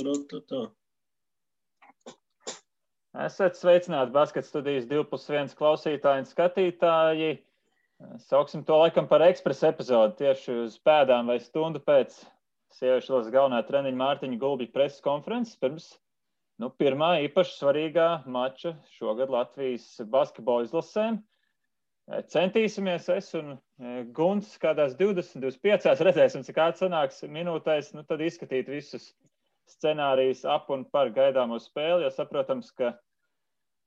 Tā. Esat sveicināti Basket studijas 2+1 klausītāji un skatītāji. Sauksim to laikam par ekspresa epizodi tieši uz pēdām vai stundu pēc sieviešu izlases galvenā treniņa Mārtiņa Gulbja preses konferences pirms pirmā īpaši svarīgā mača šogad Latvijas basketbola izlasēm. Centīsimies es un Gunts kādās 20-25 redzēsim, cik atsanāks minūtēs, tad izskatīt visus scenārijus ap un par gaidāmo spēli, jo saprotams, ka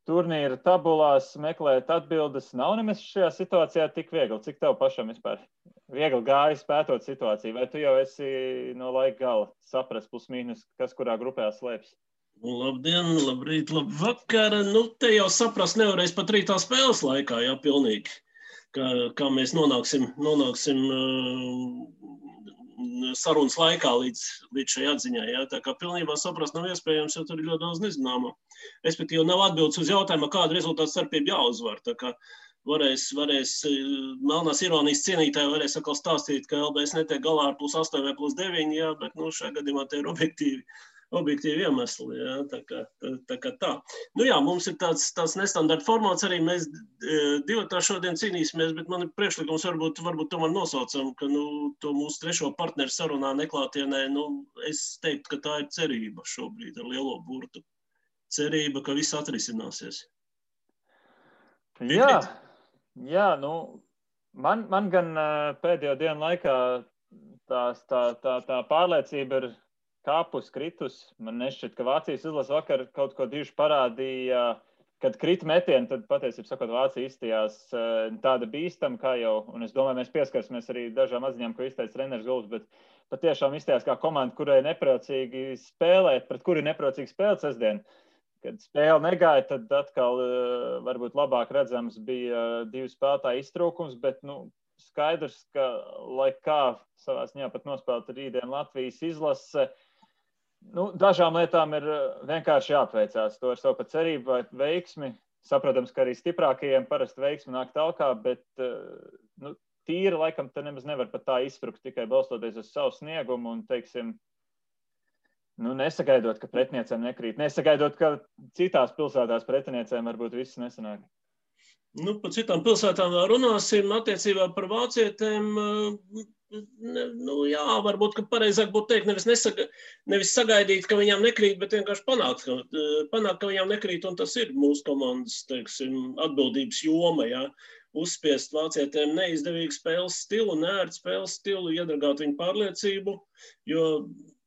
turnīra tabulās meklēt atbildes nav nemaz šajā situācijā tik viegli. Cik tev pašam vispār viegli gājis pētot situāciju? Vai tu jau esi no laika gala saprast plus mīnus, kas kurā grupā slēpjas? Labdien, labrīt, labvakar. Te jau saprast nevarēs pat rītā spēles laikā, jā, pilnīgi. Kā mēs nonāksim sarunas laikā līdz šai atziņai. Jā. Tā kā pilnībā saprast nav iespējams, jo tur ir ļoti daudz nezināmo. Respektīvi nav atbildes uz jautājumu, kādu rezultātu starpību jāuzvar. Tā kā varēs melnās ironijas cienītāji varēs atkal stāstīt, ka LBS netiek galā ar +8 vai +9, jā, bet šajā gadījumā te ir objektīvi iemesli, jā, tā kā tā. Jā, mums ir tāds nestandarta formāts arī, mēs divatā šodien cīnīsimies, bet man ir priekšlikums varbūt tomēr nosaucam, ka to mūsu trešo partneru sarunā neklātienē, es teiktu, ka tā ir cerība šobrīd ar lielo burtu. Cerība, ka viss atrisināsies. Jā, man gan pēdējo dienu laikā tā pārliecība ir kāpus, kritus. Man nešķiet, ka Vācijas izlase vakar kaut ko diži parādīja, kad krita metieni, tad patiesībā sakot, Vācija izstījās tāda bīstama, kā jau, un es domāju, mēs pieskarsimies arī dažām atziņām, ko izteica treneris Gulbs, bet patiešām izstījās kā komanda, kurai nepriecīgi spēlēt, pret kuri nepriecīgi spēlēt sestdien. Kad spēle negāja, tad atkal varbūt labāk redzams bija divu spēlētāju iztrūkums, bet skaidrs, ka lai kā savā ziņā pat nospēlēt rītdien Latvijas izlase, dažām lietām ir vienkārši jāapveicās. To ar savu pat cerību vai veiksmi. Saprotams, ka arī stiprākajiem parasti veiksmi nāk talkā, bet tīri laikam te nemaz nevar pat tā izsprukt, tikai balstoties uz savu sniegumu un, teiksim, nesagaidot, ka pretiniecēm nekrīt. Nesagaidot, ka citās pilsētās pretiniecēm varbūt viss nesanāk. Par citām pilsētām vēl runāsim. Attiecībā par vācietēm, jā, varbūt, ka pareizāk būtu teikt, nevis sagaidīt, ka viņām nekrīt, bet vienkārši panākt, ka viņām nekrīt, un tas ir mūsu komandas, teiksim, atbildības joma, jā. Uzspiest vācietēm neizdevīgu spēles stilu, neērtu spēles stilu, iedragāt viņu pārliecību, jo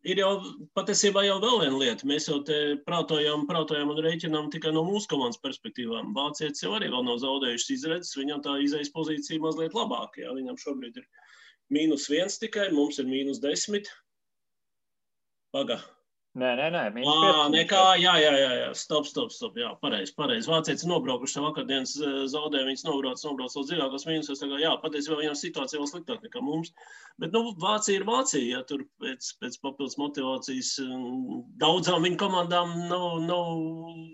ir jau patiesībā jau vēl viena lieta. Mēs jau te prātojam un rēķinām tikai no mūsu komandas perspektīvām. Vācietis jau arī vēl nav zaudējušas izredzes, viņam tā izejas pozīcija mazliet labāka. Jā. Viņam šobrīd ir -1 tikai, mums ir -10. Paga. Nē, -15. Nekā, jā, stop, jā, pareizi. Vācietis nobraukuši vakardienas zaudē, viņas nobrauc uz dziļākos mīnusos, tā kā, jā, patiesībā viņam situācija vēl sliktāk nekā mums. Bet, Vācija ir Vācija, ja tur pēc papildus motivācijas daudzām viņu komandām nav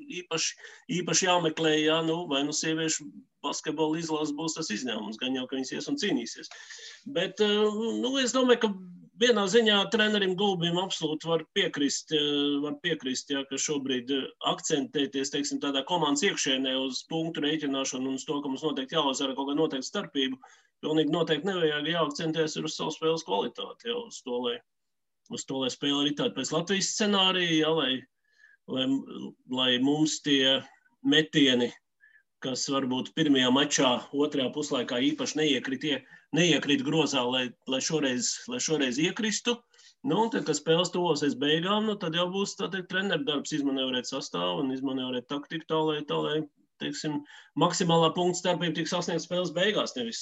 īpaši jāmeklē, jā, vai sieviešu basketbola izlases būs tas izņēmums, gan jau, ka viņas ies un cīnīsies. Bet, es domāju, ka vienā ziņā trenerim Gulbim absolūti var piekrist, jā, ka šobrīd akcentēties, teiksim, tādā komandas iekšienē uz punktu rēķināšanu un uz to, ka mums noteikti jāuzvara kaut kāda noteikta starpība. Pilnīgi noteikti nevajag jāakcentēties uz savu spēles kvalitāti, jā, uz to, lai spēle arī tāda pēc Latvijas scenārija, jā, lai mums tie metieni, kas varbūt pirmajā mačā, otrajā puslaikā īpaši neiekrīt grozā, lai šoreiz iekristu. Tad, kad spēles tuvosies beigām, tad jau būs treneru darbs izmanevrēt sastāvu un izmanevrēt taktiku tā, lai teiksim, maksimālā punkta starpība tiks sasniegt spēles beigās. Nevis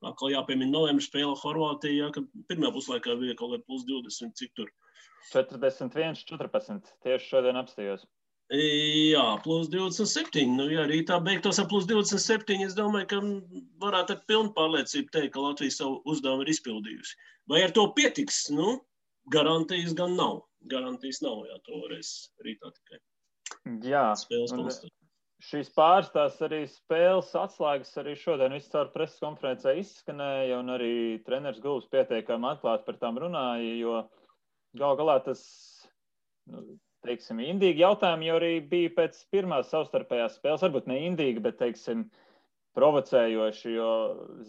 atkal jāpiemina novembra spēle Horvātijā, kad pirmajā puslaikā bija kaut kāda +20, cik tur? 41-14. Tieši šodien apstājos. Jā, +27. Ja rītā beigtos ar +27, es domāju, ka varētu ar pilnu pārliecību teikt, ka Latvija savu uzdevumu ir izpildījusi. Vai ar to pietiks? Garantijas gan nav. Garantijas nav, jā, to varēs rītā tikai. Jā, šīs pārstās arī spēles atslēgas arī šodien viscaur preses konferencē izskanēja, un arī treneris Gulbs pieteikami atklāti par tām runāja, jo gal galā tas teiksim, indīgi jautājumi jau arī bija pēc pirmās savstarpējās spēles, varbūt ne indīgi, bet, teiksim, provocējoši, jo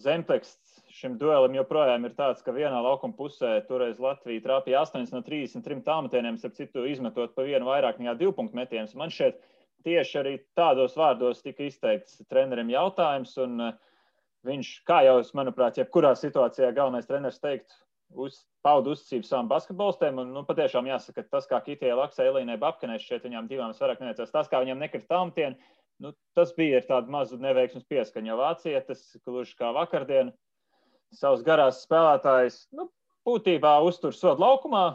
zemteksts šim duelim joprojām ir tāds, ka vienā laukuma pusē toreiz Latvija trāpīja 8 no 33 tālmetieniem, starp citu izmetot pa vienu vairāk nekā 2 punktu metienus. Man šķiet, tieši arī tādos vārdos tika izteikts trenerim jautājums, un viņš, kā jau, manuprāt, jebkurā situācijā galvenais treneris teikt, pauda uzticību savam basketbolistiem, un patiešām jāsaka, tas, kā Kitijai Laksai, Elīnai Babkanai, šķiet viņām divām vairāk neveicās, tas, kā viņām nekrita tālmetieni, tas bija ar tādu mazu neveiksmes pieskaņu, jo vācietis, gluži kā vakardien, savus garās spēlētājus, būtībā uztur sodu laukumā,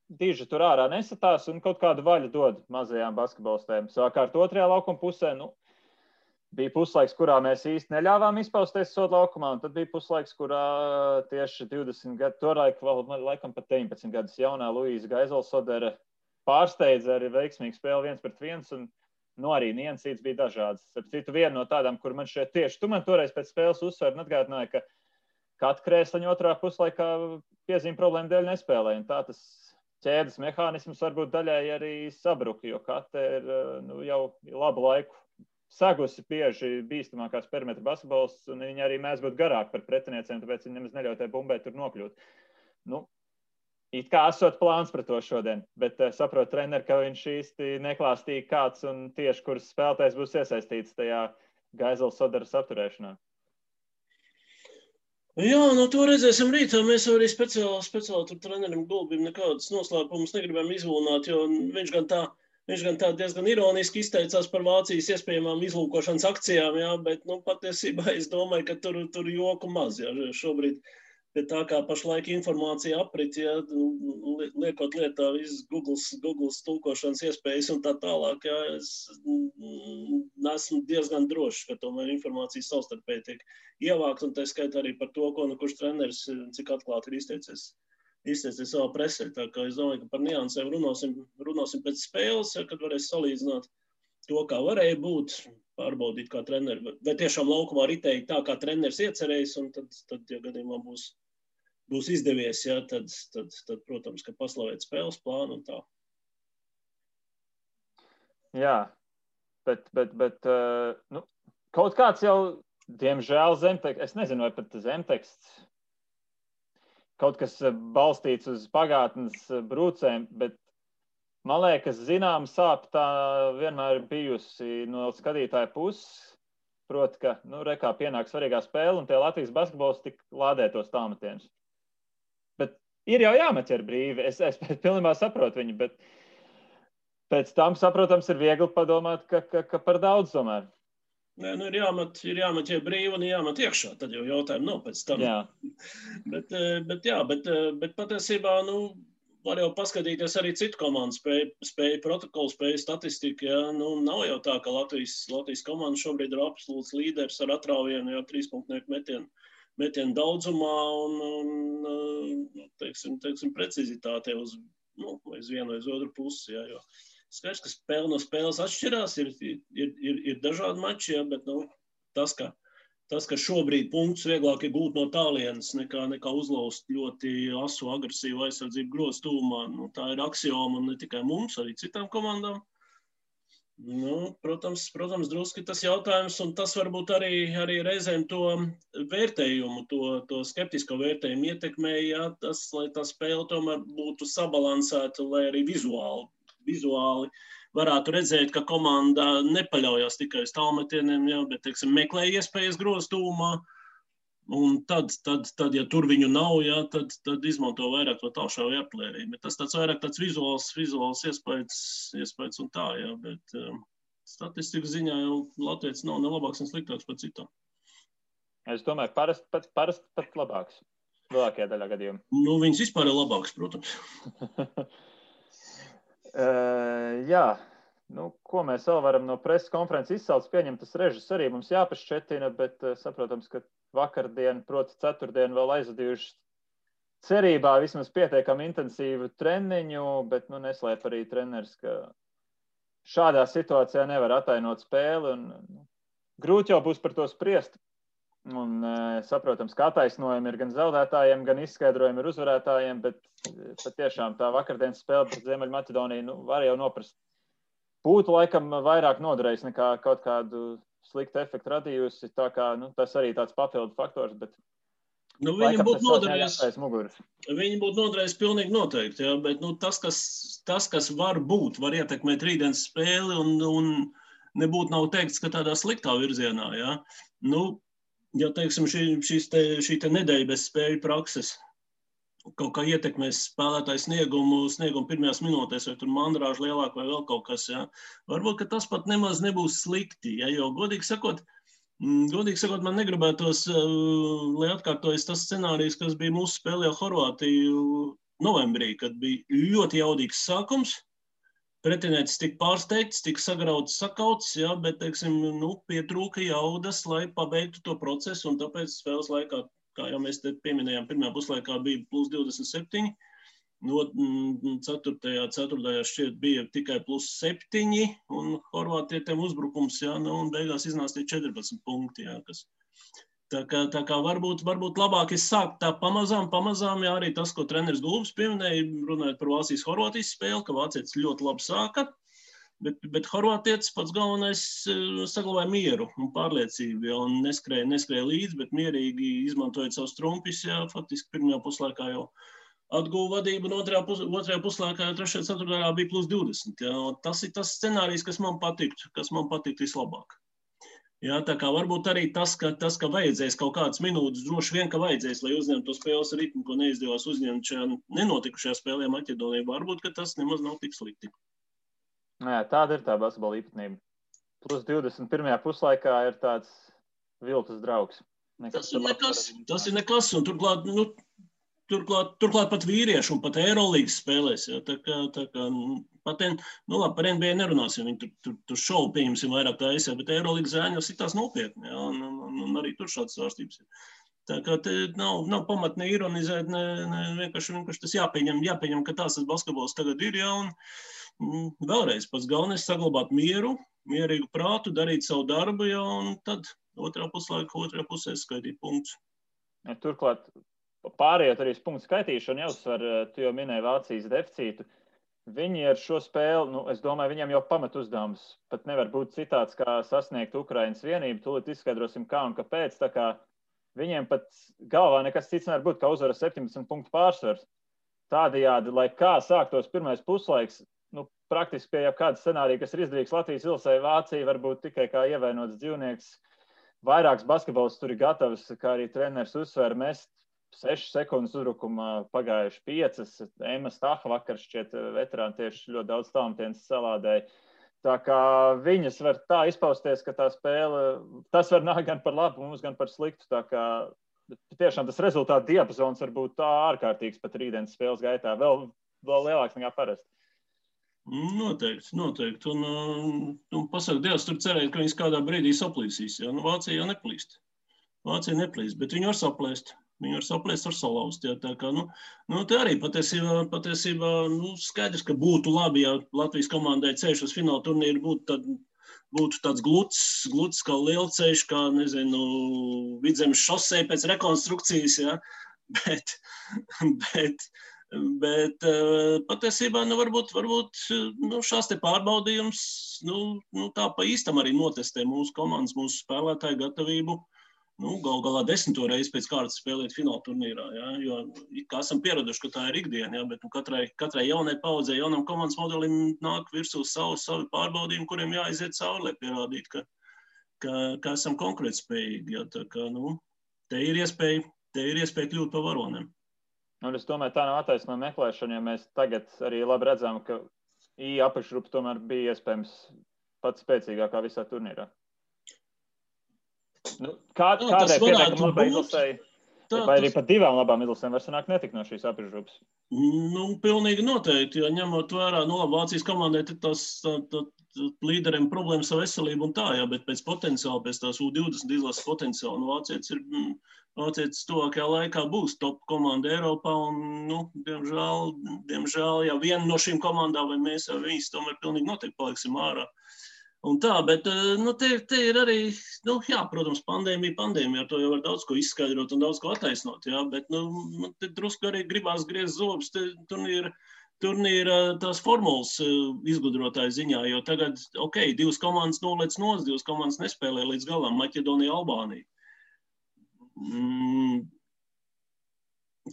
diži tur ārā nesatās un kaut kādu vaļu dod mazajām basketbolistēm. Savukārt otrajā laukuma pusē, bija puslaiks, kurā mēs īsti neļāvām izpausties sodu laukumā, un tad bija puslaiks, kurā tieši 20 gadu, toraik vēl laikam pat 19 gadus jaunā Luīza Gaizelsodere pārsteidza arī veiksmīgu spēli 1-1, un arī niansītes bija dažādas. Ar citu vienu no tādām, kur man šeit tieši, tu man toreiz pēc spēles uzsver un atgādināja, ka Kata Krēsliņa otrā puslaikā piezīme problēma dēļ nespēlēja, un tā tas ķēdes mehānisms varbūt daļai arī sabruka, jo Kata ir jau labu laiku segusi bieži bīstamākās perimetra basketbols, un viņa arī mēs būtu garāk par pretinieciem, tāpēc viņa nemaz neļauj tai bumbai tur nokļūt. It kā esot plāns par to šodien, bet saprot treneri, ka viņš īsti neklāstīja kāds un tieši kuras spēlētājs būs iesaistīts tajā Gaizelsoderes apturēšanā. Jā, to redzēsim rītā. Mēs arī speciāli tur trenerim Gulbim nekādas noslēpumus negribam izlūnāt, jo viņš gan tā diezgan ironiski izteicās par Vācijas iespējamām izlūkošanas akcijām, jā, bet patiesībā es domāju, ka tur joku maz, jā, šobrīd. Bet tā kā pašlaik informācija aprit, ja, liekot lietā visas Google tulkošanas iespējas un tā tālāk, ja, es esmu diezgan drošs, ka tomēr informācija savstarpēji tiek ievākt, un tā skaitā arī par to, ko kurš treneris, cik atklāti ir izteicies savā presē. Tā kā es domāju, ka par niansēm runāsim pēc spēles, ja, kad varēs salīdzināt to, kā varēja būt, pārbaudīt kā treneri. Vai tiešām laukumā ritēja tā, kā treneris iecerējis, un tad ja gadījumā būs izdevies, ja, tad, protams, ka paslavēt spēles plānu un tā. Jā, bet kaut kāds jau, diemžēl, zemteksts, es nezinu, vai pat zemteksts, kaut kas balstīts uz pagātnes brūcēm, bet man liekas, zinām sāp tā vienmēr bijusi no skatītāja puses, proti, ka, rekā pienāk svarīgā spēle, un tie Latvijas basketbols tik lādē tos tālmetienus. Bet ir jau jāmet ar brīvi, es pilnībā saprotu viņu, bet pēc tam, saprotams, ir viegli padomāt, ka par daudz tomēr. Nē, ir jāmet ja brīvi un jāmet iekšā, tad jau jautājumu nav pēc tam. Jā. bet patiesībā, var jau paskatīties arī citu komandu spēju protokolu, spēju statistiku. Ja? Nav jau tā, ka Latvijas komanda šobrīd ir absolūts līderis ar atrauvienu, 3-punktu metienu daudzumā un teiksim, precizitātē uz vienu vai uz otru pusi. Ja? Jo skaidrs, ka spēle no spēles atšķirās, ir dažādi mači, ja? Bet tas, ka šobrīd punktus vieglāk ir gūt no tālienes, nekā uzlauzt ļoti asu agresīvu aizsardzību grozu tūmā. Tā ir aksioma un ne tikai mums, arī citām komandām. Protams, druski tas jautājums, un tas varbūt arī reizēm to vērtējumu, to skeptisko vērtējumu ietekmēja, ja, lai tā spēle tomēr būtu sabalansēta, lai arī vizuāli varētu redzēt, ka komanda nepaļaujas tikai uz tālmetieniem, ja, bet, teiksim, meklē iespējas grozu tūmā, un tad, ja tur viņu nav, ja, tad izmanto vairāk to tālšāvu artilēriju. Bet tas vairāk tāds vizuāls iespējas un tā, ja, bet statistikas ziņā jau Latvijas nav ne labāks, ne sliktāks par citām. Es domāju, parasti pat labāks. Lielākajā daļā gadījumā. Viņas vispār ir labāks, protams. Jā, ko mēs vēl varam no preses konferences izsaukt, pieņemt tas režis arī mums jāpašķetina, bet saprotams, ka vakardien, proti ceturtdien vēl aizvadījuši cerībā vismaz pietiekami intensīvu treniņu, bet neslēp arī treneris, ka šādā situācijā nevar atainot spēli un grūti jau būs par to spriest. Un, saprotams, ka attaisnojumi ir gan zaudētājiem, gan izskaidrojumi ir uzvarētājiem, bet patiešām tā vakardienas spēle pret Ziemeļmaķedoniju var jau noprast. Būtu laikam vairāk noderējis nekā kaut kādu sliktu efektu radījusi, tā kā tas arī tāds papildu faktors, bet Viņi būtu noderējis pilnīgi noteikti, jā, bet tas, kas var būt, var ietekmēt rītdienas spēli un nebūtu nav teikts, ka tādā sliktā virzienā, jā. Ja, teiksim, šī nedēļa bez spēļu prakses kaut kā ietekmēs spēlētāju sniegumu pirmajās minūtēs, vai tur mandrāžu lielāk vai vēl kaut kas, jā. Varbūt, ka tas pat nemaz nebūs slikti, jā, jo godīgi sakot, man negribētos, lai atkārtojas tas scenārijs, kas bija mūsu spēlē Horvātiju novembrī, kad bija ļoti jaudīgs sākums. Pretinieks tika pārsteigts, tika sagrauts, sakauts, jā, bet, teiksim, pietrūka jaudas, lai pabeigtu to procesu, un tāpēc spēles laikā, kā jau mēs te pieminējām, pirmajā puslaikā bija plus 27, ceturtajā šķiet bija tikai plus 7, un horvātietiem uzbrukums, jā, un beigās iznāstīja 14 punkti, jā, kas. Tā kā varbūt labāk sākt tā pamazām, jā, arī tas, ko treneris Gulbis pieminēja, runājot par Vācijas-Horvātijas spēli, ka vācietis ļoti labi sāka, bet horvātietis pats galvenais saglabāja mieru un pārliecību, jā, un neskrēja līdzi, bet mierīgi izmantojot savus trumpis, jā, faktiski pirmajā puslaikā jau atguva vadību, un otrajā puslaikā jau 3. ceturtajā bija plus 20, jā, tas ir tas scenārijs, kas man patiktu vislabāk. Jā, tā kā varbūt arī tas, ka vajadzēs kaut kādas minūtes, droši vien, ka vajadzēs, lai uzņemtu to spēles ritmu, ko neizdevās uzņemt šajā nenotikušajā spēlē Maķedonijā, varbūt, ka tas nemaz nav tik slikti. Jā, tāda ir tā basketbola īpatnība. Plus 21. puslaikā ir tāds viltus draugs. Tas ir nekas, un turklāt pat vīriešu un pat Eirolīgas spēlēs, jā, tā kā par NBA nerunāsim, viņi tur šovu pieņemsim vairāk taisē, bet Eirolīgas zēņi jau sitās nopietni, jā, un arī tur šādas svārstības ir. Tā kā te nav pamat ne ironizēt, vienkārši tas jāpieņem, ka tās basketbols tagad ir, jā, un vēlreiz pats galvenais saglabāt mieru, mierīgu prātu, darīt savu darbu, jā, un tad otrā pusē skaitīt punktus. Ja, turklāt, pārējot arī uz punktu skaitīšanu, jāuzsver, tu jau minēji Vācijas deficītu. Viņi ar šo spēli, es domāju, viņiem jau pamat uzdevums pat nevar būt citāds, kā sasniegt Ukrainas vienību. Tūlīt izskaidrosim, kā un kāpēc. Tā kā viņiem pat galvā nekas cits nevar būt, kā uzvara 17 punktu pārsvars. Tādējādi, lai kā sāktos pirmais puslaiks, praktiski pie jau kāda scenārija, kas ir izdarīgs Latvijas Ilsai, Vācija varbūt tikai kā ievainots dzīvnieks. Vairāks basketbols tur ir gatavs, kā arī treneris uzsver, mest 6 sekundes uzbrukumā pagājuši 5. Ema Staha vakar šķiet veterāni tieši ļoti daudz tālmetiens salādēja. Tā kā viņas var tā izpausties, ka tā spēle, tas var nākt gan par labu mums, gan par sliktu. Tā kā tiešām tas rezultātu diapazons var būt tā ārkārtīgs pat rītdienas spēles gaitā. Vēl lielāks nekā parasti. Noteikti. Un pasaka Dievs, tur cerēt, ka viņas kādā brīdī saplīsīs. Ja? Vācija jau neplīst. Bet viņi var saplēst. Viņi var saplēst, var salauzt. Ja? Tā kā, te arī patiesībā skaidrs, ka būtu labi, ja Latvijas komandai ceļš uz fināla turnīru būtu tāds gluds kā lielceļš, kā, nezinu, Vidzemes šosei pēc rekonstrukcijas, ja? Bet patiesībā, varbūt šās te pārbaudījums, tā pa īstam arī notestē mūsu komandas, mūsu spēlētāju gatavību, gal galā 10. reizi pēc kārtas spēlēt fināla turnīrā, ja? Jo kā esam pieraduši, ka tā ir ikdiena, ja? Bet katrai jaunai paudzei, jaunam komandas modelim nāk virsū savi pārbaudījumi, kuriem jāiziet cauri, lai pierādītu, ka esam konkurētspējīgi, ja? Tā kā, te ir iespēja kļūt par varoniem. Un es domāju, tā nav attaisnojuma meklēšana, jo mēs tagad arī labi redzam, ka apakšgrupa tomēr bija iespējams pats spēcīgākā visā turnīrā. Kādai pietiekam labai izlasēji, vai arī pat divām labām izlasēm var sanākt netikt no šīs apakšgrupas? Pilnīgi noteikti, jo ņemot vērā, Vācijas komandai tas līderiem problēmas ar veselību un tā, jā, bet pēc potenciāla, pēc tās U20 izlases potenciāla, Vācietis tuvākajā laikā būs top komanda Eiropā un, diemžēl, ja viena no šīm komandām vai mēs vai viņas tomēr pilnīgi noteikti paliksim ārā. Un tā, bet te ir arī, jā, protams, pandēmija, ar to jau var daudz ko izskaidrot un daudz ko attaisnot, jā, bet te drusku arī gribās griezt zobus turnīra tās formulas izgudrotāju ziņā, jo tagad, 2 komandas nolec nost, 2 komandas nespēlē līdz galam, Maķedonija, Albānija.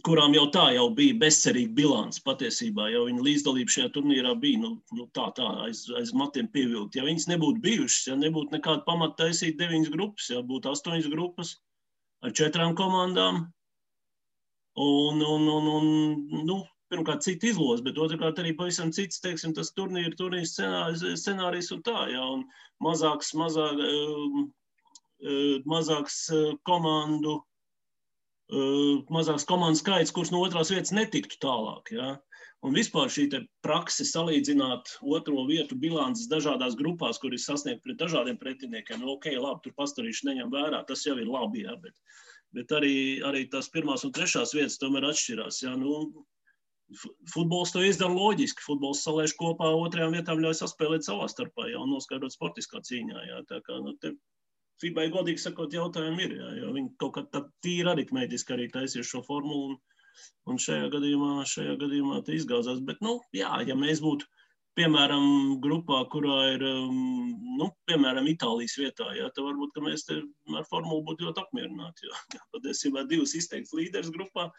Kurām jau tā jau bija bezcerīga bilants patiesībā, jo viņa līdzdalība šajā turnīrā bija tā aiz matiem pievilkt. Ja viņas nebūtu bijušas, ja nebūtu nekāda pamata taisīt 9 grupas, ja būtu 8 grupas ar 4 komandām un pirmkārt cita izlozes, bet otrkārt arī pavisam cits, teiksim, tas turnīra scenārijs un tā, ja, un mazāks komandu mazāks komandu skaits, kurš no otrās vietas netiktu tālāk. Ja? Un vispār šī prakse salīdzināt otro vietu bilances dažādās grupās, kur ir sasniegt pret dažādiem pretiniekiem, labi, tur pastarīši neņem vērā, tas jau ir labi, ja? Bet arī tās pirmās un trešās vietas tomēr atšķirās. Ja? Futbols to izdara loģiski, futbols salēž kopā, otrajām vietām ļauj saspēlēt savā starpā, ja? Un noskaidrot sportiskā cīņā. Ja? Tā kā, FIBA, godīgi sakot, jautājumi ir, jo viņi kaut kā tā tīri aritmētiski arī taisīs šo formulu un šajā gadījumā te izgāzās. Bet, ja mēs būtu, piemēram, grupā, kurā ir, piemēram, Itālijas vietā, ja, tad varbūt, ka mēs te ar formulu būtu ļoti apmierināti, jo patiesībā 2 izteikts līderis grupā,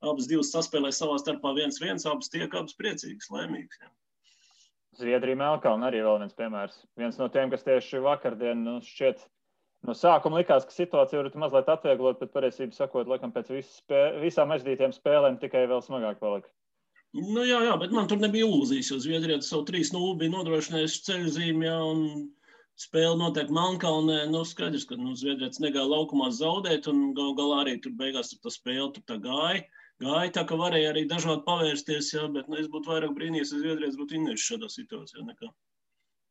abas 2 saspēlē savā starpā 1-1, abas priecīgas, laimīgas. Ja. Zviedrija, Melnkalne arī vēl viens piemērs. Viens no tiem, kas tieši vakardien šķiet no sākuma likās, ka situācija var mazliet atvieglot, bet pareizībā sakot, laikam pēc visām aizdītiem spēlēm tikai vēl smagāk palika. Jā, bet man tur nebija ilūzijas, jo Zviedrija savu 3-0 bija nodrošinājuši ceļzīmi, ja, un spēle notiek Melnkalnē. Skaidrs, ka Zviedrijas negāja laukumā zaudēt, un galā arī tur beigās tā spēle tur tā gāja. Tā, ka varēja arī dažādi pavērsties, ja, bet es būtu vairāk brīnījies, ja Zviedrijas būtu innējuši šādā situācijā nekā.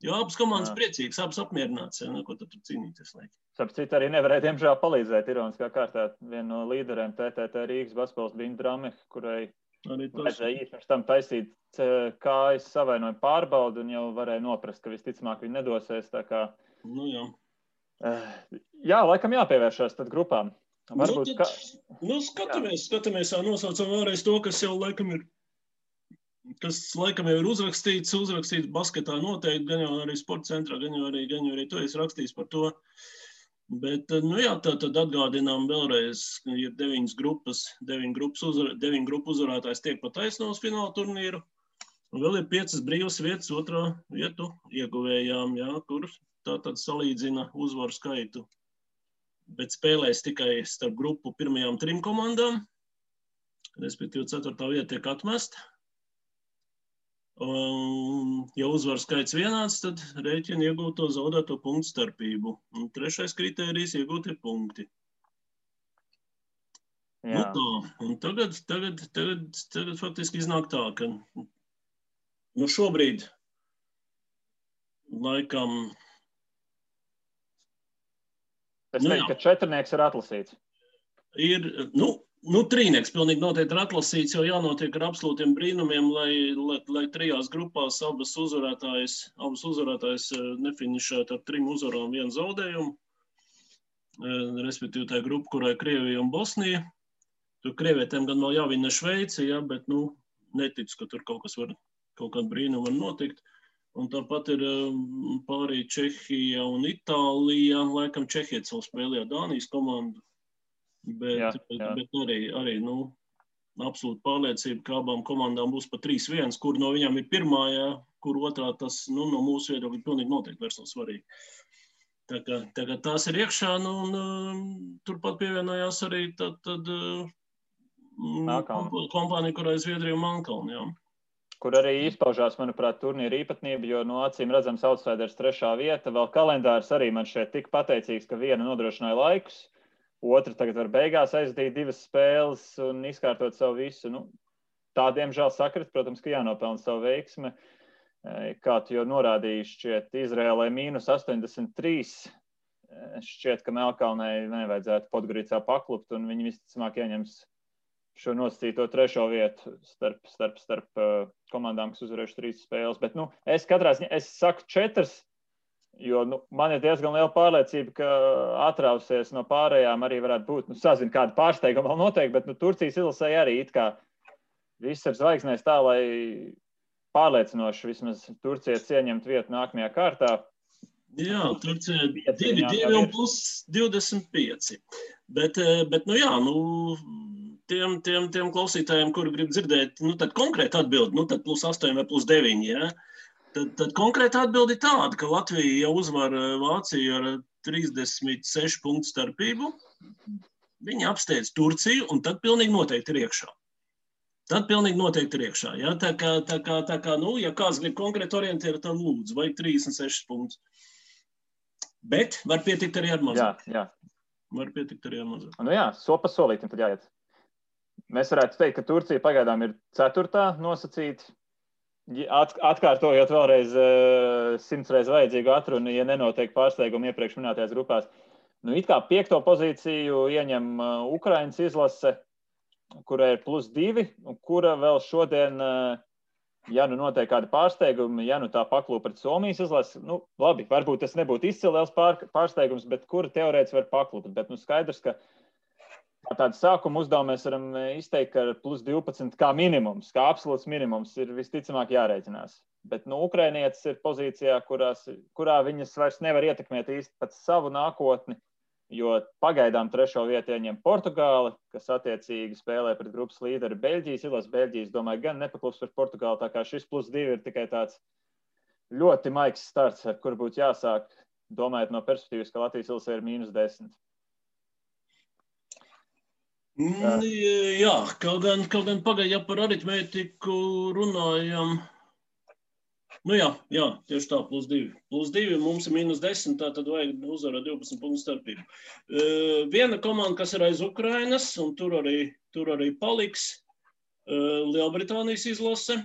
Jo abas komandas priecīgas, abas apmierināts, ja, ko tad tur cīnīties laiki. Sapcīt arī nevarēja, diemžēl, palīdzēt ironiskā kārtā. Viena no līderiem TTT Rīgas basketbols bija Drame, kurai vajadzēja īsti pirms tam taisīt kājas savainojumu pārbaudu un jau varēja noprast, ka visticamāk viņi nedosies. Tā kā, jā. Jā, laikam jāpievēršās tad grupām. Varbūt, skatāmies, nosaucam vēlreiz to, kas laikam jau ir uzrakstīts basketā noteikti, gan jau arī sporta centrā, gan jau arī to es rakstījis par to. Bet, tad atgādinām vēlreiz, ka ir 9 grupu uzvarētājs tiek pa taisno uz fināla turnīru. Un vēl ir 5 brīvas vietas otrā vietu ieguvējām, ja, kur tātad salīdzina uzvaru skaitu. Bet spēlēs tikai starp grupu pirmajām 3 komandām, respektīvi 4. vieta tiek atmesta. Ja uzvaru skaits vienāds, tad rēķina iegūto zaudēto punktu starpību. Un 3. kritērijs iegūtie punkti. Jā. Un tagad faktiski iznāk tā, ka šobrīd laikam... Es teiktu, ka 4 ir atlasīts. Ir, trīnieks pilnīgi noteikti ir atlasīts, jo jānotiek ar absolūtiem brīnumiem, lai 3 grupās abas uzvarētājs nefinišētu ar 3 uzvarām 1 zaudējumu. Respektīvi tā grupa, kurā ir Krievija un Bosnija. Tur krievietēm gan vēl jāvina Šveice, ja, bet neticu, ka tur kaut kāda brīnuma var notikt. Un tāpat ir pārī Čehija un Itālija. Laikam Čehija savu spēlē Dānijas komandu. Bet arī absolūti pārliecība, ka abām komandām būs pa 3-1, kur no viņām ir pirmā, ja, kur otrā tas no mūsu viedokļa pilnīgi noteikti vairs nav svarīgi. Tā kā tās ir iekšā, turpat pievienojās arī kompānija, kurā ir Zviedrija un Melnkalne, jā. Kur arī izpaužās, manuprāt, turnīra īpatnība, jo no acīm redzams outsiders 3. vieta. Vēl kalendārs arī man šeit tik pateicīgs, ka viena nodrošināja laikus, otra tagad var beigās aizdīt 2 spēles un izkārtot savu visu. Tā, diemžēl, sakrit, protams, ka jānopelna savu veiksmi. Kā tu jau norādīji, šķiet Izraēlai -83. Šķiet, ka Melnkalnei nevajadzētu Podgoricā paklupt, un viņi visticamāk ieņems šo nosacīto 3. vietu starp komandām, kas uzvarējuši 3 spēles. Bet, es katrā ziņā, es saku 4, Jo man ir diezgan liela pārliecība, ka atrausies no pārējām arī varētu būt. Sazinu, kāda pārsteiguma vēl noteikti, bet Turcijas izlasēja arī it kā viss ir zvaigznēs tā, lai pārliecinoši vismaz Turcija ieņemt vietu nākamajā kārtā. Jā, Turcija 2 un plus 25. Bet tiem klausītājiem, kuri grib dzirdēt, tad konkrēti atbildi, tad plus 8 vai plus 9, ja? Tad konkrēti atbildi tāda, ka Latvija jau uzvar Vāciju ar 36 punktu starpību. Viņi apsteidz Turciju un tad pilnīgi noteikti ir iekšā. Ja? Tā kā, ja kāds grib konkrēti orientēt, tad lūdzu, vajag 36 punktus. Bet var pietikt arī ar mazāk. Jā. Var pietikt arī ar mazāk. Soli pa solītim tad jāiet. Mēs varētu teikt, ka Turcija pagaidām ir 4. nosacīta. Atkārtojot vēlreiz 100 reiz vajadzīgu atrunu, ja nenotiek pārsteigumi iepriekš minētajās grupās. It kā 5. pozīciju ieņem Ukrainas izlase, kurai ir plus 2, un kura vēl šodien, ja notiek kādi pārsteigumi, ja tā paklūp pret Somijas izlasi, labi, varbūt tas nebūtu izcilēls pārsteigums, bet kura teorētiski var paklūpt. Bet skaidrs, ka tādu sākuma uzdevumu mēs varam izteikt, ka plus 12 kā minimums, kā absolūts minimums ir visticamāk jārēķinās. Bet Ukrainietis ir pozīcijā, kurā viņas vairs nevar ietekmēt īsti pat savu nākotni, jo pagaidām 3. vietu ieņem Portugāli, kas attiecīgi spēlē pret grupas līderi Beļģijas izlasi. Beļģijas, domāju, gan nepaklups par Portugāli, tā kā šis plus 2 ir tikai tāds ļoti maigs starts, ar kur būtu jāsāk, domājot no perspektīvas, ka Latvijas izlase ir -10. Jā, kaut gan pagaid, ja par aritmētiku runājam. Jā, tieši tā, plus 2. Plus 2 mums ir -10, tā tad vajag uzvarēt 12 punktu starpību. Viena komanda, kas ir aiz Ukrainas, un tur arī paliks Lielbritānijas izlase.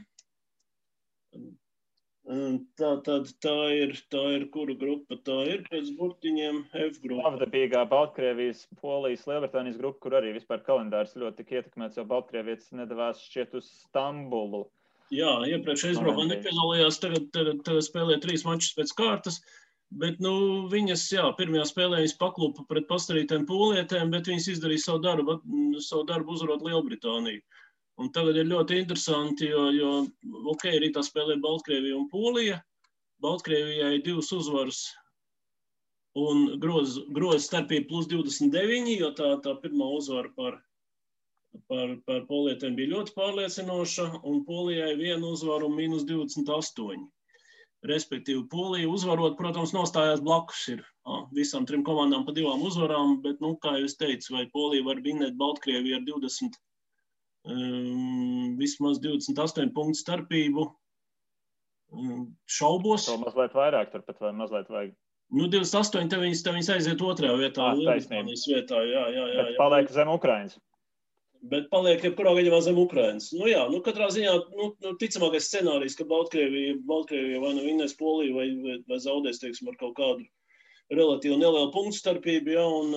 Tā ir kura grupa? Tā ir pēc burtiņiem F grupa. Savdabīgā Baltkrievijas, Polijas, Lielbritānijas grupa, kur arī vispār kalendārs ļoti tik ietekmēts, jo Baltkrievietis nedavās šķiet uz Stambulu. Jā, iepriekš aizbraukā nepiedalījās, tagad spēlē 3 mačus pēc kārtas, bet viņas, pirmajā spēlē viņas paklūpa pret pastarītēm pūlietēm, bet viņas izdarīja savu darbu uzvarot Lielbritāniju. Un tagad ir ļoti interesanti, jo rītā spēlē Baltkrievija un Polija. Baltkrievijai 2 uzvaras un groza starpība plus 29, jo tā pirmā uzvara par polietēm bija ļoti pārliecinoša, un Polijai 1 uzvaru un -28. Respektīvi, Polija uzvarot, protams, nostājās blakus ir visām 3 komandām pa 2 uzvarām, bet, kā jūs teicu, vai Polija var vinēt Baltkrieviju ar vismaz 28 punktu starpību, šaubos. To mazliet vairāk turpat vai mazliet vajag? 28, te viņas aiziet 2. vietā, Lielbritānijas vietā, jā. Bet paliek zem Ukrainas. Bet paliek jebkurā gadījumā zem Ukrainas. Katrā ziņā, ticamākais scenārijs, ka Baltkrievija vai vinnēs Poliju vai zaudēs, teiksim, ar kaut kādu relatīvi nelielu punktu starpību, un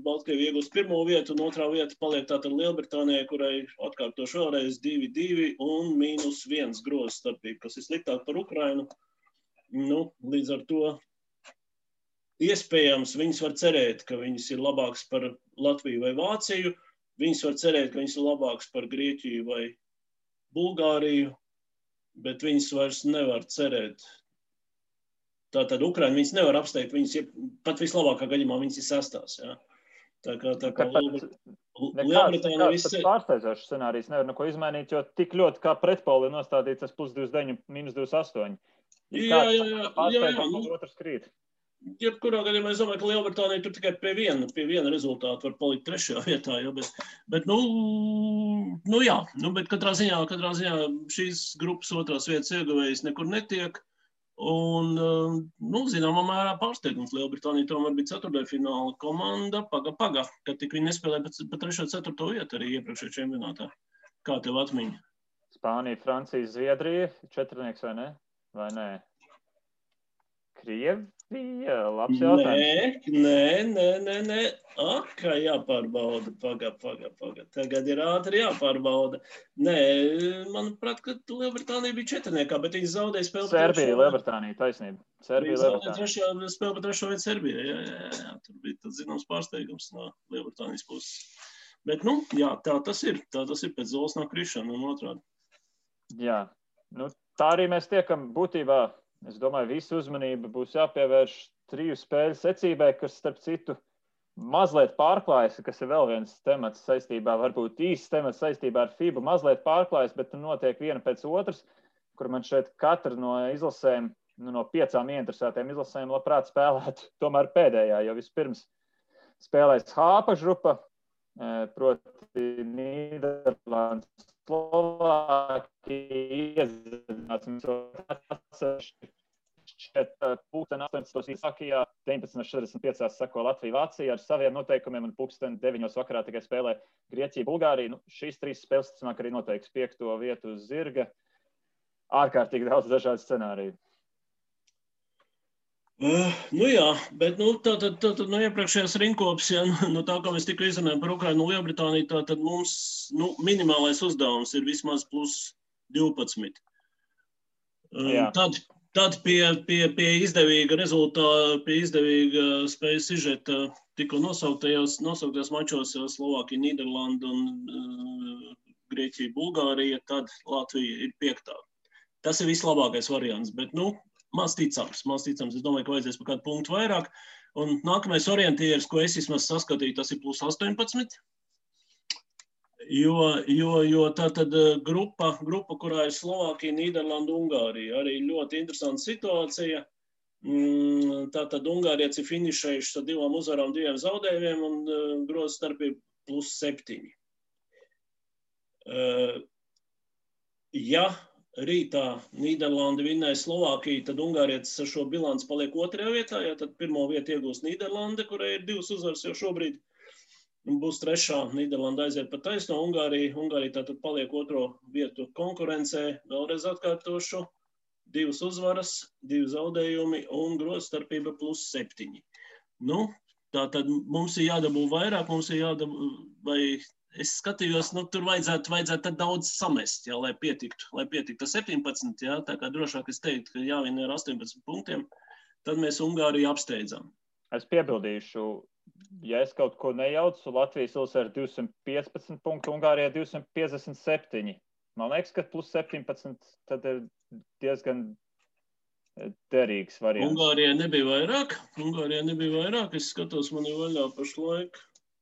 Baltkrievija iegūst 1. vietu, un 2. vieta paliek tātad Lielbritānijai, kurai atkārtoši vēlreiz 2 un -1 groza starpība, kas ir sliktāk par Ukrainu. Līdz ar to iespējams viņas var cerēt, ka viņas ir labākas par Latviju vai Vāciju. Viņas var cerēt, ka viņas ir labākas par Grieķiju vai Bulgāriju, bet viņas vairs nevar cerēt. Tātad Ukraina viņas nevar apsteigt, viņas pat vislabākā gadījumā viņas ir 6. Ja? Tā kā Lielbritānija viss ir pārsteidzošs scenārijs, nevar neko izmainīt, jo tik ļoti kā pretpoli nostādīts tas plus 29, -28. Jā. Otrs krīt. Jebkurā gadījumā es domāju, ka Lielbritānija tur tikai pie viena rezultāta var palikt 3. vietā, bet katrā ziņā šīs grupas 2. vietas ieguvējs nekur netiek, un, zināmā mērā pārsteigums. Lielbritānija tomēr bija 4. fināla komanda, paga, kad tik viņi nespēlēja pa 3. 4. vietu arī iepriekšējā čempionātā. Kā tev atmiņa? Spānija, Francija, Zviedrija, 4. vai ne? Vai nē? Krievija, labs jautājums. Nē. Kā jāpārbauda. Paga. Tagad ir ātri jāpārbauda. Nē, manuprāt, ka Lielbritānija bija četrniekā, bet viņi zaudēja spēli. Serbija, Lielbritānija, taisnība. Viņi zaudēja spēli par trešo vietu Serbijā. Jā. Tur bija tāds zināms pārsteigums no Lielbritānijas puses. Bet, jā, tā tas ir. Tā tas ir pēc zolas nav krišana un otrādi. Jā, tā arī mēs tiekam būtībā. Es domāju, visu uzmanību būs jāpievērš 3 spēļu secībai, kas, starp citu, mazliet pārklājas, kas ir vēl viens temats saistībā, varbūt īsts temats saistībā ar FIBA, mazliet pārklājas, bet notiek viena pēc otras, kur man šeit katra no izlasēm, no 5 ieinteresētiem izlasēm labprāt spēlētu tomēr pēdējā, jo vispirms spēlēs H grupa, proti Nīderlandes, Slovākija iezināsim šeit 18. Īsākijā, 19.45. sako Latvija, Vācija ar saviem noteikumiem un 9. vakarā tikai spēlē Grieķija, Bulgārija. Šīs 3 spēles, ticamāk, arī noteiks 5. vietu uz zirga. Ārkārtīgi daudz dažādu scenāriju. Jā, bet tātad no iepriekšējās rinkopas, tā kā mēs tikko izrunājam par Ukrainu un Lielbritāniju, tātad mums minimālais uzdevums ir vismaz plus 12. Tad pie izdevīga rezultāta, pie izdevīga spējas sižeta tikko nosauktajos mačos Slovākija, Nīderlanda un Grieķija, Bulgārija, tad Latvija ir 5. Tas ir vislabākais variants, bet maz ticams. Es domāju, ka vajadzēs par kādu punktu vairāk. Un nākamais orientieris, ko es vismaz saskatīju, tas ir plus 18. Jo tātad grupa, kurā ir Slovākija, Nīderlanda, Ungārija. Arī ļoti interesanta situācija. Tātad Ungārieši ir finišējuši ar 2 uzvarām, 2 zaudējumiem un groza starpība plus 7. Ja rītā Nīderlanda vinnēja Slovākiju, tad Ungārietis ar šo bilanci paliek 2. vietā, tad 1. vietu iegūs Nīderlanda, kurai ir 2 uzvaras jau šobrīd, un būs 3. Nīderlanda aiziet pa taisno, Ungārija tātad paliek 2. vietu konkurencē, vēlreiz atkārtošu, 2 uzvaras, 2 zaudējumi un groza starpība plus 7. Tātad mums ir jādabū vairāk, vai es skatījos, tur vajadzētu daudz samest, lai pietiktu 17, tā kā drošāk es teiktu, ka jāvina ar 18 punktiem, tad mēs Ungāriju apsteidzam. Es piebildīšu, ja es kaut ko nejaucu, Latvijas ilsē ir 215 punktu, Ungārijā 257. Man liekas, ka plus 17 tad ir diezgan derīgs variants. Ungārijā nebija vairāk, es skatos, man ir vaļā pašlaik.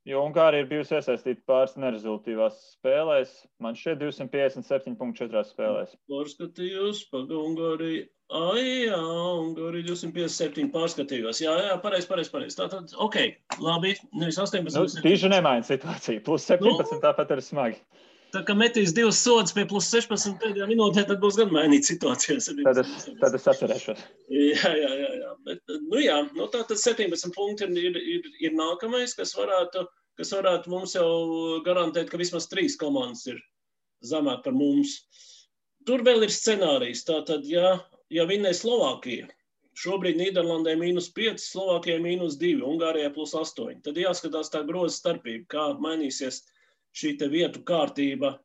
Jo Ungārija ir bijusi iesaistīta pāris nerezultīvās spēlēs. Man šeit 257.4 spēlēs. Pārskatījos, Ungārija. Ungārija 257 pārskatījos. Jā, pareizi. Tātad, labi, nevis 18. Diži nemaina situāciju. Plus 17 tāpat ir smagi. Tā kā metīs 2 sodus pie plus 16 pēdējā minūtē, tad būs gan mainīt situācijas. Tad es atcerēšos. Jā. Bet, tātad 17 punkti ir nākamais, kas varētu mums jau garantēt, ka vismaz 3 komandas ir zemāk par mums. Tur vēl ir scenārijs. Tātad, ja vinnē Slovākija, šobrīd Nīderlandē -5, Slovākijai -2, Ungārijai plus 8, tad jāskatās tā groza starpība, kā mainīsies šī te vietu kārtība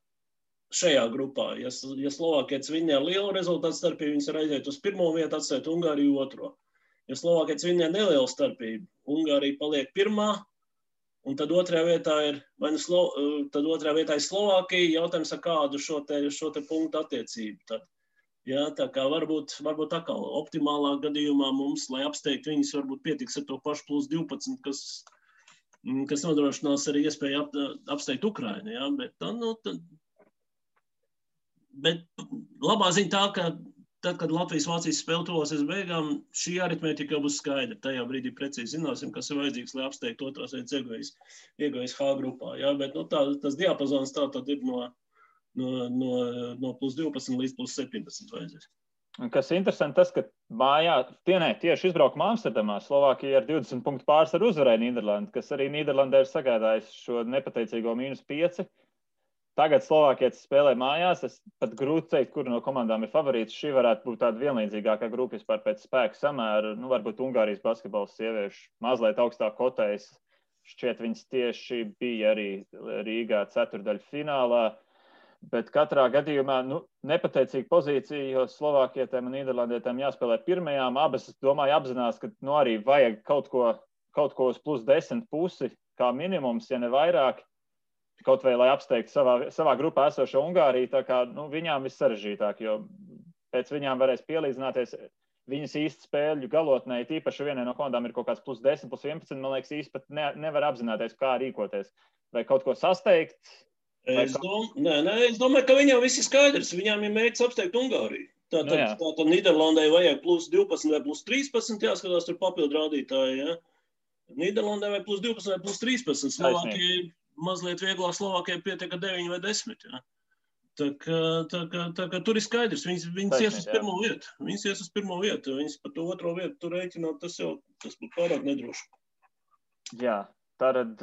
šajā grupā. Ja Slovākietis vinnē ar lielu rezultātu starpību, viņas var aiziet uz 1. vietu, atstāt Ungāriju 2. Ja Slovākietis vinnē nelielu starpību, Ungārija paliek 1. un tad 2. vietā ir, tad 2. vietā ir Slovākija, jautājums ar kādu šo te punktu attiecību. Tad, tā kā varbūt atkal optimālā gadījumā mums, lai apsteigtu viņus, varbūt pietiks ar to pašu plus 12, kas nodrošinās arī iespēju apsteigt Ukrainu, bet labā ziņa tā, ka tad, kad Latvijas-Vācijas spēle tuvosies beigām, šī aritmētika jau būs skaidra. Tajā brīdī precīzi zināsim, kas ir vajadzīgs, lai apsteigtu 2. vietas ieguvējas H grupā. Bet tas diapazons tā tad ir no plus 12 līdz plus 17 vajadzēs. Kas interesanti tas, ka tieši izbraukumā Amsterdamā Slovākija ar 20 punktu pārsvaru uzvarēja Nīderlandi, kas arī Nīderlandē ir sagādājis šo nepateicīgo -5. tagad Slovākietis spēlē mājās. Es pat grūti teikt, kura no komandām ir favorīts. Šī varētu būt tāda vienlīdzīgākā grupa vispār pēc spēka samēra. Nu, varbūt Ungārijas basketbols sieviešu mazliet augstāk kotējas. Šķiet, viņas tieši bija arī Rīgā ceturdaļfinālā. Bet katrā gadījumā nepateicīga pozīcija, jo Slovākietēm un Nīderlandietēm jāspēlē pirmajām. Abas, es domāju, apzinās, ka arī vajag kaut ko uz plus 10 pusi, kā minimums, ja ne vairāk, kaut vai, lai apsteigtu savā grupā esošo Ungāriju. Tā kā viņām viss sarežģītāk, jo pēc viņām varēs pielīdzināties. Viņas īsti spēļu galotnē, tīpaši vienai no komandām ir kaut kāds plus 10, plus 11, man liekas, īsti pat nevar apzināties, kā rīkoties. Vai kaut ko sasteigt? Es domāju, ka viņām viss ir skaidrs. Viņām ir mērķis apsteigt Ungāriju. Tātad Nīderlandē vajag plus 12 vai plus 13, jāskatās tur papildu rādītāji. Ja? Nīderlandē vai plus 12 vai plus 13. Slovākija mazliet vieglāk, Slovākijai pietiek 9 vai 10. Ja? Tā kā tur ir skaidrs. Viņas ies uz pirmo vietu. Viņas par to otro vietu tur rēķināt, tas būtu pārāk nedroši. Jā, tātad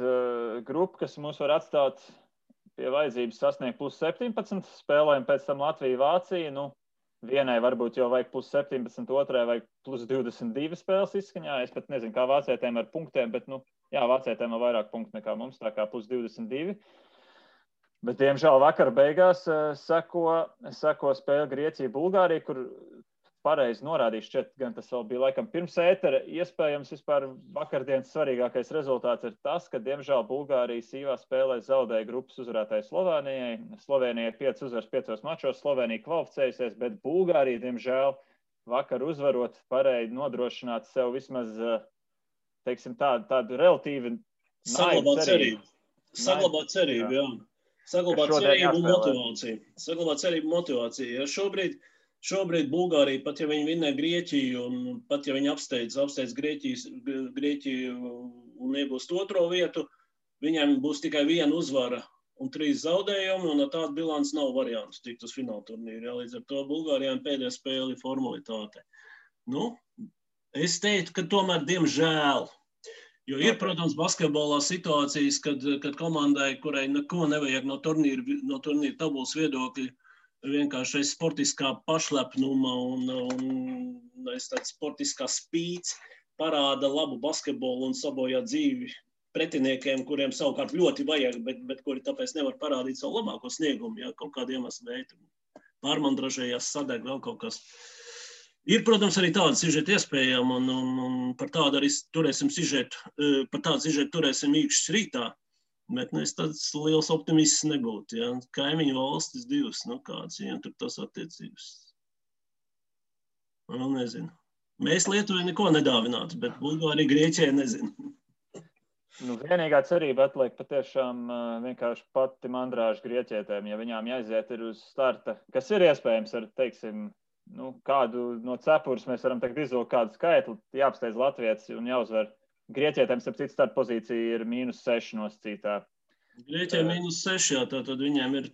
grupa, kas mums var atstāt pie vajadzības sasniegt plus 17, spēlēm pēc tam Latvija, Vācija. Vienai varbūt jau vajag plus 17, otrai vajag plus 22 spēles izskaņā. Es pat nezinu, kā vācietēm ar punktiem, bet, vācietēm ir vairāk punktu nekā mums, tā kā plus 22. Bet, diemžēl, vakar beigās seko spēle Grieķija, Bulgārija, kur pareizi norādīju, šķiet, gan tas vēl bija laikam pirms ētera. Iespējams, vispār vakardienas svarīgākais rezultāts ir tas, ka, diemžēl, Bulgārija sīvā spēlē zaudēja grupas uzvarētāju Slovēnijai. Slovēnijai 5 uzvaras 5 mačos, Slovēnija kvalificējusies, bet Bulgārija, diemžēl, vakar uzvarot varēja nodrošināt sev vismaz, teiksim, tādu relatīvi saglabāt cerību. Saglabāt cerību, jā. Saglabāt cerību motivāciju. Ja Šobrīd Bulgārija, pat ja viņi vinnē Grieķiju, un pat ja viņi apsteidz Grieķiju un iegūst otro vietu, viņiem būs tikai 1 uzvara un 3 zaudējumi, un ar tādu bilanci nav variantu tikt uz fināla turnīru. Ja, līdz ar to Bulgārijām pēdējā spēle ir formalitāte. Es teiktu, ka tomēr diemžēl, jo ir, protams, basketbolā situācijas, kad komandai, kurai neko nevajag no turnīra tabulas viedokļa, vienkārši sportiskā pašlepnuma un tāds sportiskā spīts parāda labu basketbolu un sabojā dzīvi pretiniekiem, kuriem savukārt ļoti vajag, bet kuri tāpēc nevar parādīt savu labāko sniegumu, ja kaut kādu iemeslu dēļ. Pārmandražējās, sadeg vēl kaut kas. Ir, protams, arī tāda sižeta iespējama, un par tādu arī turēsim īkšķis rītā. Bet es tāds liels optimists nebūtu. Ja? Kaimiņu valstis 2, kāds viņam tur tas attiecības. Nezinu. Mēs Lietuvai neko nedāvinātu, bet Bulgārija Grieķijai nezinu. Vienīgā cerība atliek patiešām vienkārši pati mandrāža Grieķietēm, ja viņām jāiziet ir uz starta, kas ir iespējams ar, teiksim, kādu no cepures mēs varam tagad izvilkt kādu skaitli, jāapsteidz latvietis un jāuzvar. Grieķietēm, starp citu, starta pozīcija ir -6 nosacītā. Grieķijai -6, jā, tātad viņiem ir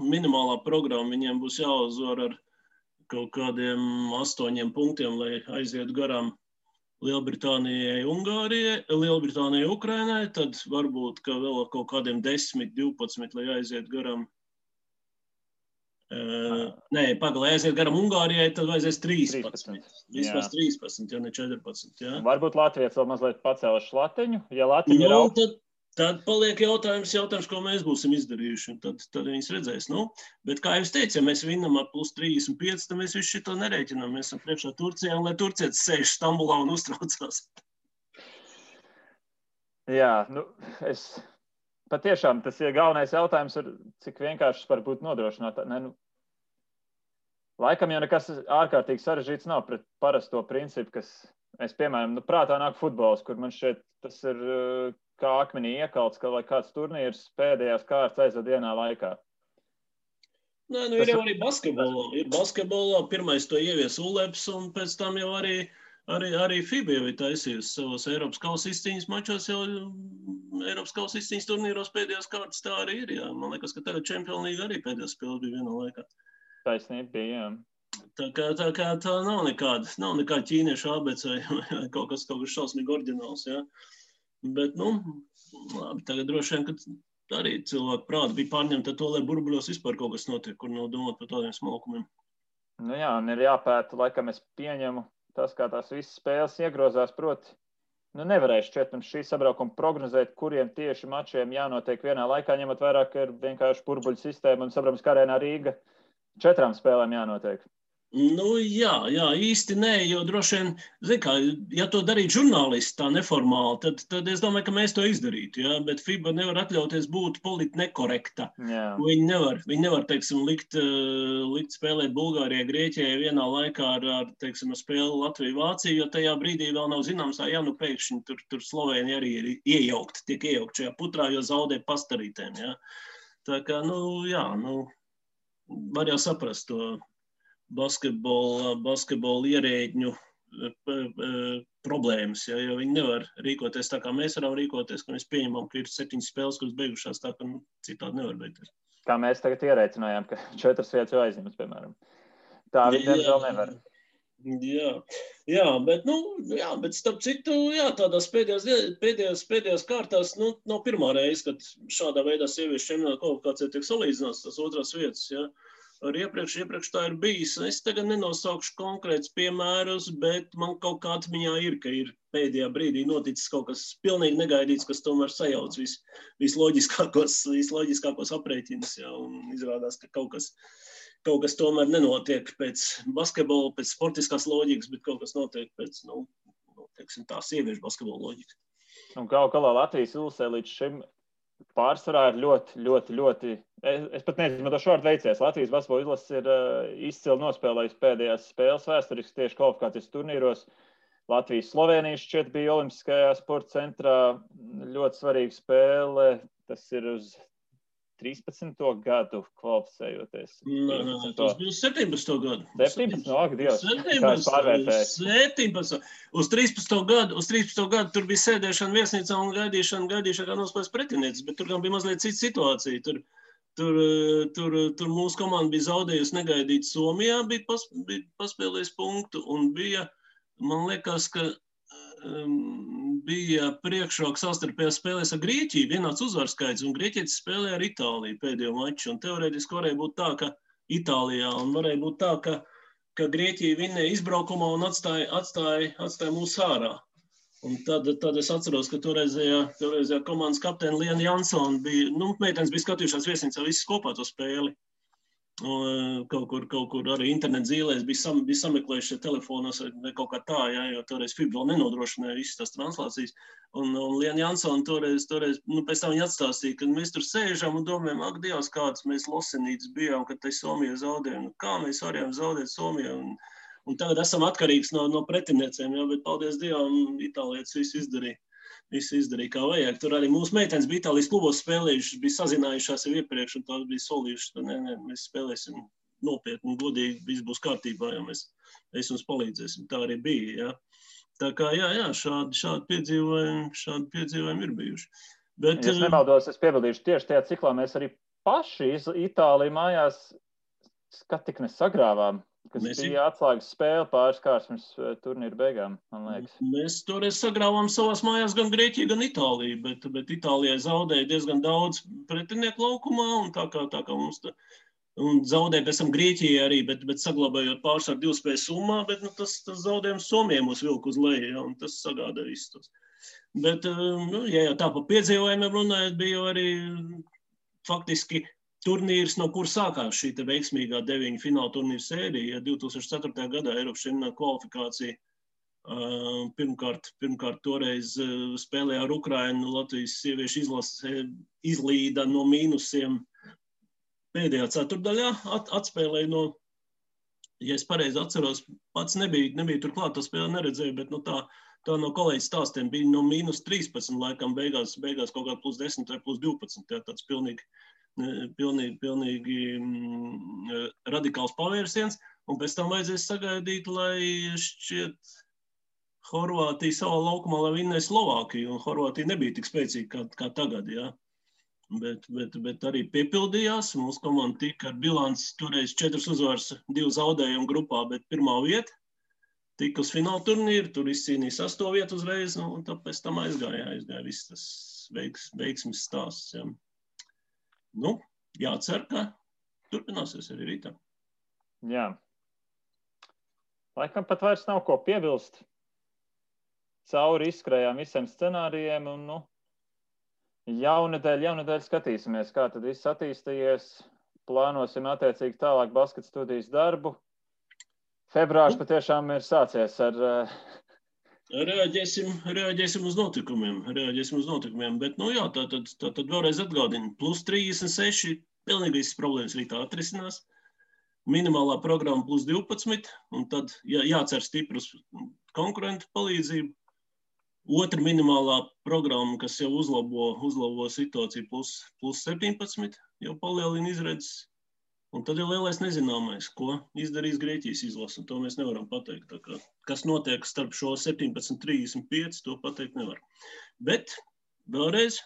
minimālā programma, viņiem būs jāuzvar ar kaut kādiem 8 punktiem, lai aizietu garām Lielbritānijai, Ungārijai, Lielbritānijai, Ukrainai, tad varbūt, ka vēl ar kaut kādiem 10, 12, lai aizietu garām. Lai aiziet garam Ungārijai, tad vajadzēs 13. Vismaz 13, ja ne 14. Ja? Varbūt Latvijas vēl mazliet pacēla šlatiņu. Ja Latviņa ir augsts, tad paliek jautājums, ko mēs būsim izdarījuši. Tad viņas redzēs. Bet, kā jau es teicu, ja mēs vinnam ar plus 35, tad mēs visu šito nerēķinām. Mēs esam priekšā Turcijā, un lai turcietis sēž Stambulā un uztraucās. Jā, patiešām tas ir galvenais jautājums, cik vienkārši var būt nodrošināt. Laikam jau nekas ārkārtīgi sarežģīts nav pret parasto principu, kas, piemēram, prātā nāk futbols, kur man šeit tas ir kā akmenī iekalts, ka lai kāds turnīrs pēdējās kārtas aizved vienā laikā. Ir jau arī basketbolā. Ir basketbolā, pirmais to ievies ULEPS, un pēc tam jau arī FIBA jau ir taisījusi savos Eiropas kausa izcīņas mačos, jau Eiropas kausa izcīņas turnīros pēdējās kārtas tā arī ir. Jā. Man liekas, ka tagad Champions League arī pēdējās spēles bija vienā laikā. Taisnība bija, jā. Tā kā tā nav nekāda ķīniešu ABC vai kaut kas šausmīgi oriģināls, jā. Bet, labi, tagad droši vien, ka arī cilvēku prāti bija pārņemti ar to, lai burbuļos vispār kaut kas notiek, kur nav domāt par tādiem smalkumiem. Nu jā, un ir jāpēta, laikam es pieņemu tas, kā tās visas spēles iegrozās, proti, nevarēšu šķiet un šī sabraukuma prognozēt, kuriem tieši mačiem jānotiek vienā laikā, ņemot vairāk, ka ir vienkārši burbuļu sistēma un saprams, ka Arēnā Rīga 4 spēlēm jānotiek. Nu, jā, īsti nē, jo droši vien, zin kā, ja to darītu žurnālisti tā neformāli, tad es domāju, ka mēs to izdarītu, jā, bet FIBA nevar atļauties būt politi nekorekta. Viņi nevar, teiksim, likt spēlēt Bulgārijai, Grieķijai vienā laikā ar teiksim, spēli Latviju-Vāciju, jo tajā brīdī vēl nav zināms, pēkšņi tur Slovēņi arī ir tiek iejaukt šajā putrā, jo zaudē pastarītēm, jā. Tā kā, var jau saprast to basketbola ierēģņu problēmas, ja, jo viņi nevar rīkoties tā, kā mēs varam rīkoties, ka mēs pieņemam, ka ir 7 spēles, kuras beigušās tā, ka citādi nevar beigties. Kā mēs tagad ierēcinājām, ka 4 vietas jau aizņemas, piemēram. Tā viņi diemžēl nevar. Bet starp citu, tādās pēdējās kārtās, nav pirmā reize, kad šādā veidā sieviešu čempionāta kvalifikācija tiek salīdzināts tās otrās vietas, ja. Ar iepriekš tā ir bijis. Es tagad nenosaukšu konkrētus piemērus, bet man kaut kā atmiņā ir, ka ir pēdējā brīdī noticis kaut kas pilnīgi negaidīts, kas tomēr sajauc visloģiskākos aprēķinus, ja, un izrādās, ka kaut kas tomēr nenotiek pēc basketbola, pēc sportiskās loģikas, bet kaut kas notiek pēc, teiksim tā, sieviešu basketbola loģikas. Un kaut galā Latvijas ilsē līdz šim pārsvarā ir ļoti, es pat neizmantošu vārdu veicies. Latvijas basketbola izlases ir izcili nospēlējusi pēdējās spēles vēsturiski tieši kvalifikācijas turnīros. Latvijas-Slovēnijas šķiet bija Olimpiskajā sporta centrā ļoti svarīga spēle. Tas ir uz 13. gadu kvalificējoties. Tas bija uz 17. gadu. 17. Dievs, kā es pārvērtēju. 17. Uz 13. gadu tur bija sēdēšana viesnīcā un gaidīšana, kā nospēlēs pretinieces, bet tur gan bija mazliet cita situācija. Tur mūsu komanda bija zaudējusi negaidīt Somijā, bija paspēlējis punktu un bija, man liekas, ka bija priekšroka savstarpējās spēlēs ar Grieķiju, vienāds uzvarskaits, un Grieķietis spēlēja ar Itāliju pēdējo maču, un teorētiski varēja būt tā, ka Itālijā, un varēja būt tā, ka Grieķija vinnēja izbraukumā un atstāja mūs ārā. Un tad es atceros, ka toreizējā komandas kapteini Liena Jansona bija, meitenes bija skatījušās viesnīcā visas kopā to spēli. Kaut kur arī internet zīlēs bija sameklējuši telefonos vai kaut kā tā, jo toreiz FIBA vēl nenodrošināja visas tās translācijas. Un Liena Jansona toreiz pēc tam viņa atstāstīja, ka mēs tur sēžam un domājam, ak, Dievs, kāds mēs losenītas bijām, kad tai Somija zaudējām. Kā mēs varējām zaudēt Somiju? Un tagad esam atkarīgs no pretiniecēm, bet paldies Dievam, itālietis visu izdarīja kā vajag. Tur arī mūsu meitenes bija Itālijas klubos spēlējušas, bija sazinājušās jau iepriekš, un tās bija solījušas, ka mēs spēlēsim nopietni un godīgi, viss būs kārtībā, ja mēs jums palīdzēsim. Tā arī bija, jā. Tā kā, šādi piedzīvojumi ir bijuši. Bet, ja es nemaldos, es piebildīšu tieši tajā ciklā, mēs arī paši Itāliju mājās tik nesagrāvām. Kas bija atslēgas spēle pāris kārs turnīra beigām, man liekas. Mēs toreiz sagrāvām savās mājās gan Grieķiju, gan Itāliju, bet Itālijai zaudēja diezgan daudz pretinieku laukumā, un tā kā mums un zaudēja pēc tam Grieķijai arī, bet saglabājot pārsvaru 2 spēļu summā, bet tas zaudējums Somijai mūs vilka uz leju, ja, un tas sagādāja visus tos. Bet, ja tā pa piedzīvojumiem runājot, bija arī faktiski turnīrs, no kur sākās šī veiksmīgā 9 fināla turnīra sērija. 2004. gadā Eiropas čempionāta kvalifikācija pirmkārt toreiz spēlēja ar Ukrainu, Latvijas sieviešu izlase izlīda no mīnusiem pēdējā ceturtdaļā, atspēlēja no, ja es pareizi atceros, pats nebija turklāt, to spēli neredzēju, bet tā no kolēģis stāstiem bija no mīnus 13 laikam beigās kaut kā plus 10 vai plus 12, tāds pilnīgi radikāls pavērsiens, un pēc tam vajadzēs sagaidīt, lai šķiet Horvātija savā laukumā, lai vinnēja Slovākiju, un Horvātija nebija tik spēcīga kā tagad, jā. Bet arī piepildījās, mūsu komanda tika ar bilanci toreiz 4 uzvaras, 2 zaudējumu grupā, bet pirmā vieta, tika uz fināla turnīru, tur izcīnīja 8. vietu uzreiz, un tāpēc tam aizgāja viss tas veiksmes stāsts, jā. Nu, jācer, ka turpināsies arī rītā. Jā. Laikam pat vairs nav ko piebilst. Cauri izskrējām visiem scenārijiem un, jaunedēļ skatīsimies, kā tad viss attīstījies. Plānosim attiecīgi tālāk basket studijas darbu. Februārs patiešām ir sācies ar... Reaģēsim uz notikumiem, bet, tātad vēlreiz atgādinu, plus 36, pilnīgi visas problēmas rītā atrisinās, minimālā programma plus 12, un tad jācer stiprus konkurentu palīdzību, otra minimālā programma, kas jau uzlabo situāciju plus 17, jau palielina izredzes, un tad jau lielais nezināmais, ko izdarīs Grieķijas izlase, un to mēs nevaram pateikt. Tā kā, kas notiek starp šo 17.35, to pateikt nevar. Bet vēlreiz,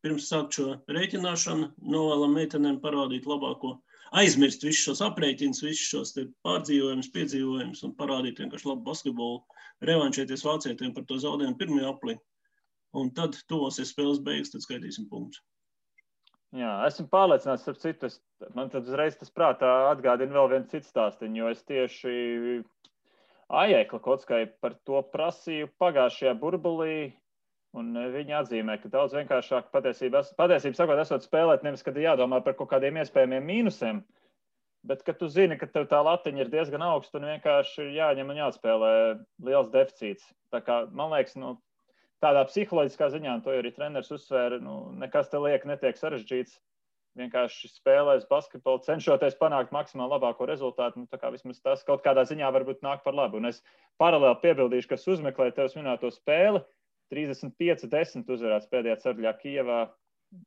pirms sākt šo rēķināšanu, novēlam meitenēm parādīt labāko, aizmirst visus šos aprēķinus, visus šos pārdzīvojumus, piedzīvojumus un parādīt vienkārši labu basketbolu, revanšēties vācietiem par to zaudējumu pirmajā aplī. Un tad tuvosies spēles beigas, tad skaitīsim punktus. Jā, esmu pārliecināts, starp citu, man tad uzreiz tas prātā atgādina vēl viens cits stāstiņu, jo es tieši Ajēkla Kockai par to prasīju pagājušajā burbulī, un viņi atzīmē, ka daudz vienkāršāk patiesība sakot, esot spēlēt, nevis, kad jādomā par kaut kādiem iespējamiem mīnusiem, bet, kad tu zini, ka tev tā latiņa ir diezgan augsta un vienkārši jāņem un jāatspēlē liels deficīts. Tā kā, man liekas, tādā psiholoģiskā ziņā, un to arī treneris uzsvēra, nekas te liek netiek sarežģīts. Vienkārši spēlēs basketbolu, cenšoties panākt maksimāli labāko rezultātu. Tā kā vismaz tas kaut kādā ziņā varbūt nāk par labu. Un es paralēli piebildīšu, kas uzmeklē tevis minēto spēli. 35-10 uzvarēts pēdējā ceturdaļā Kijevā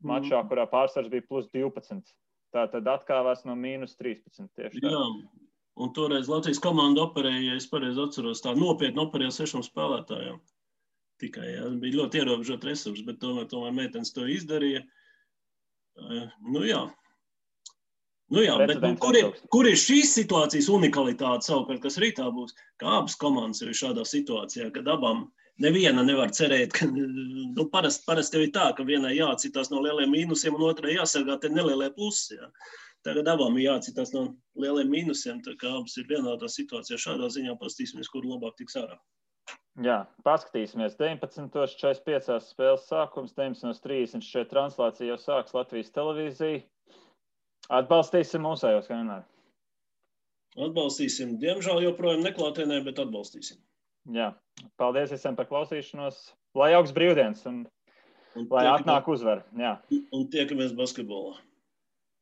mačā, kurā pārsvars bija plus 12. Tātad atkāvās no mīnus 13 tieši tā. Jā, un toreiz Latvijas komanda operēja, ja es pareizi atceros, tā nopietni operēja 6 spēlētājiem. Tikai, bija ļoti ierobežot resursi, bet tomēr meitenes to izdarīja. Bet kur ir šīs situācijas unikalitāte savukārt, kas rītā būs? Kā abas komandas ir šādā situācijā, kad abām neviena nevar cerēt, ka parasti jau ir tā, ka vienai jācitās no lieliem mīnusiem un otrai jāsargā te nelielie plusi. Jā. Tagad abām ir jācitās no lieliem mīnusiem, tā kā abas ir vienādā situācijā. Šādā ziņā pastīsimies, kur labāk tiks ārā. Jā, paskatīsimies. 19.45 spēles sākums, 19.30 šeit translācija jau sāks Latvijas televīzija. Atbalstīsim mūsējos, kā vienmēr. Atbalstīsim. Diemžēl joprojām neklātienē, bet atbalstīsim. Jā, paldies visiem par klausīšanos. Lai augsts brīvdienas un lai atnāk uzvar. Jā. Un tiekamies basketbolā.